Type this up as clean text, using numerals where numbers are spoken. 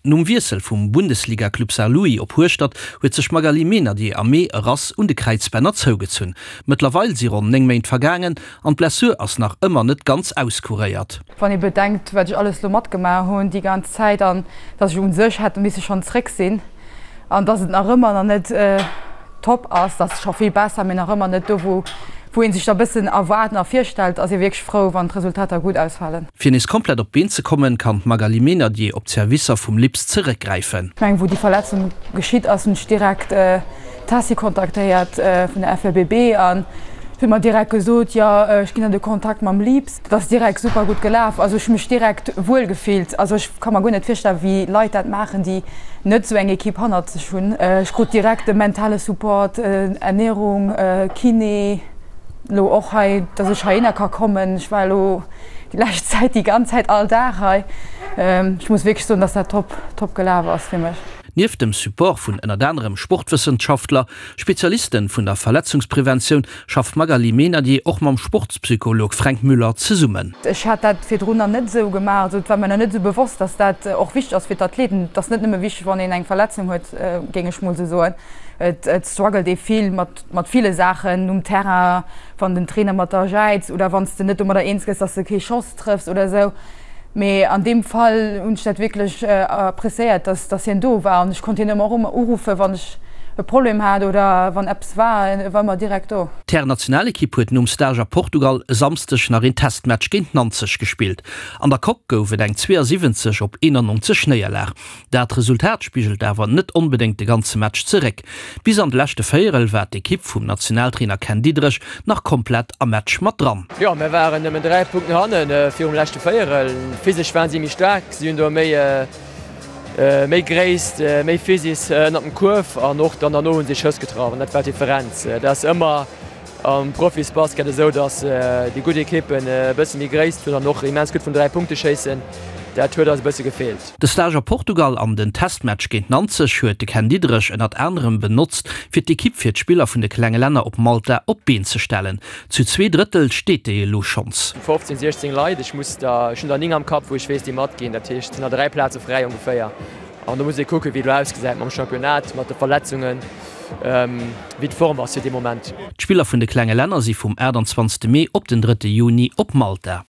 Nom Wiessel vum Bundesliga-Club Saarlouis op Hueschtert huet sech d'Magali Meynadier am Mee e Rass un de Kräizbänner zougezunn. Mëttlerweil si ronn 9 Méint vergaangen an d'Blessur ass nach ëmmer net ganz auskuréiert. Wann ee bedenkt, wat ech alles lo matgemaach hunn déi ganz Zäit an dass ech u sech hätt misse schonn zréck sinn an dass et nach ëmmer nach net top ass, dat ass scho vill besser, mee nach ëmmer net do, wou wou ee sech da bëssen erwaart a virstellt, ass ee wierklech frou, wann d'Resultater gutt ausfalen. Fir nees komplett op d'Been ze kommen, kann d'Magali Meynadier op d'Servicer vum Lips zeréckgräifen. Ech mengen, wou déi Verletzung geschitt ass, hunn ech direkt d'Tessy kontaktéiert vun der FLBB an huet mer direkt gesot, jo ech ginn der de Kontakt mam Lips. Dat ass direkt super gutt gelaf. Also ech hu mech direkt wuel gefillt. Also ech ka mer guer net virstellen, wéi Leit dat maachen, déi net esou eng Equipe hannert sech hunn. Ech krut direkt de mentale Support, Ernährung, Kiné, elo och hei, dass ech heihinner ka kommen. Ech war elo déi lescht Zäit déi ganz Zäit all Dag hei. Ech muss wierklech soen, dass dat top, top gelaf ass fir mech. Nieft dem Support vun ënnert anerem Sportwëssenschaftler, Spezialisten vun der Verletzungspreventioun, schafft d'Magali Meynadier och mam Sportspsycholog Fränk Müller zesummen. Ech hat dat virdrun nach net esou gemaach, also et war mir nach net esou bewosst, dass dat och wichteg ass fir d'Athleten. Et ass net nëmme wichteg, wann een eng Verletzung huet, géing ech mol esou soen. Et struggelt ee vill mat mat ville Saachen um Terrain, wann den Trainer mat der jäizt oder wann s de net domadder eens gëss, dass de kee Schoss trëffs oder esou. Mee an deem Fall hunn ech dat wierklech appreciéiert, dass dass hien do war an ech konnt hien ëmmer och ëmmer uruffen, wann ech e Problem hat oder wann eppes war, e war ëmmer direkt do. D'Hären-Nationalekipp huet nom Stage a Portugal e Samsdeg nach een Testmatch géint Nanzeg gespillt. An der Coque gouf et eng 72 op 91 Néierlag. Dat Resultat spigelt awer net onbedéngt de ganze Match zeréck. Bis an de leschte Véierel war d'Ekipp vum Nationaltrainer Ken Diederich nach komplett am Match mat dran. Jo, mir waren nëmmen 3 Punkten hannen virum leschte Véierel. Physesch waren si méi staark, si hunn do méi méi Gréisst, méi Physis ënnert dem Kuerf an och dann derno hunn si Schëss getraff an dat war d'Differenz. Dat ass ëmmer Am Profisbasket esou, datt déi gutt Ekippen e bësse méi Gréisst hunn an och immens gutt vun 3 Punkte schéissen. Dat huet eis e bësse gefeelt. De Stage a Portugal an den Testmatch géint Nanzeg huet de Ken Diederich ënnert anerem benotzt, fir d'Ekipp fir d'Spiller vun de klenge Länner op Malta op d'Been ze stellen. Zu 2 Drëttel steet déi elo schonns. 15, 16 Leit, ech muss der, ech hunn der 9 am Kapp, wou ech weess, déi matginn. Dat heescht, et sinn der 3 Plaze fräi ongeféier. An do muss ee kucken, wéi et elo ausgesäit mam Championnat, mat de Verletzungen, wéi d'Form ass fir dee Moment. D'Spiller vun de klenge Länner si vum 28 Mee op den 3 Juni op Malta.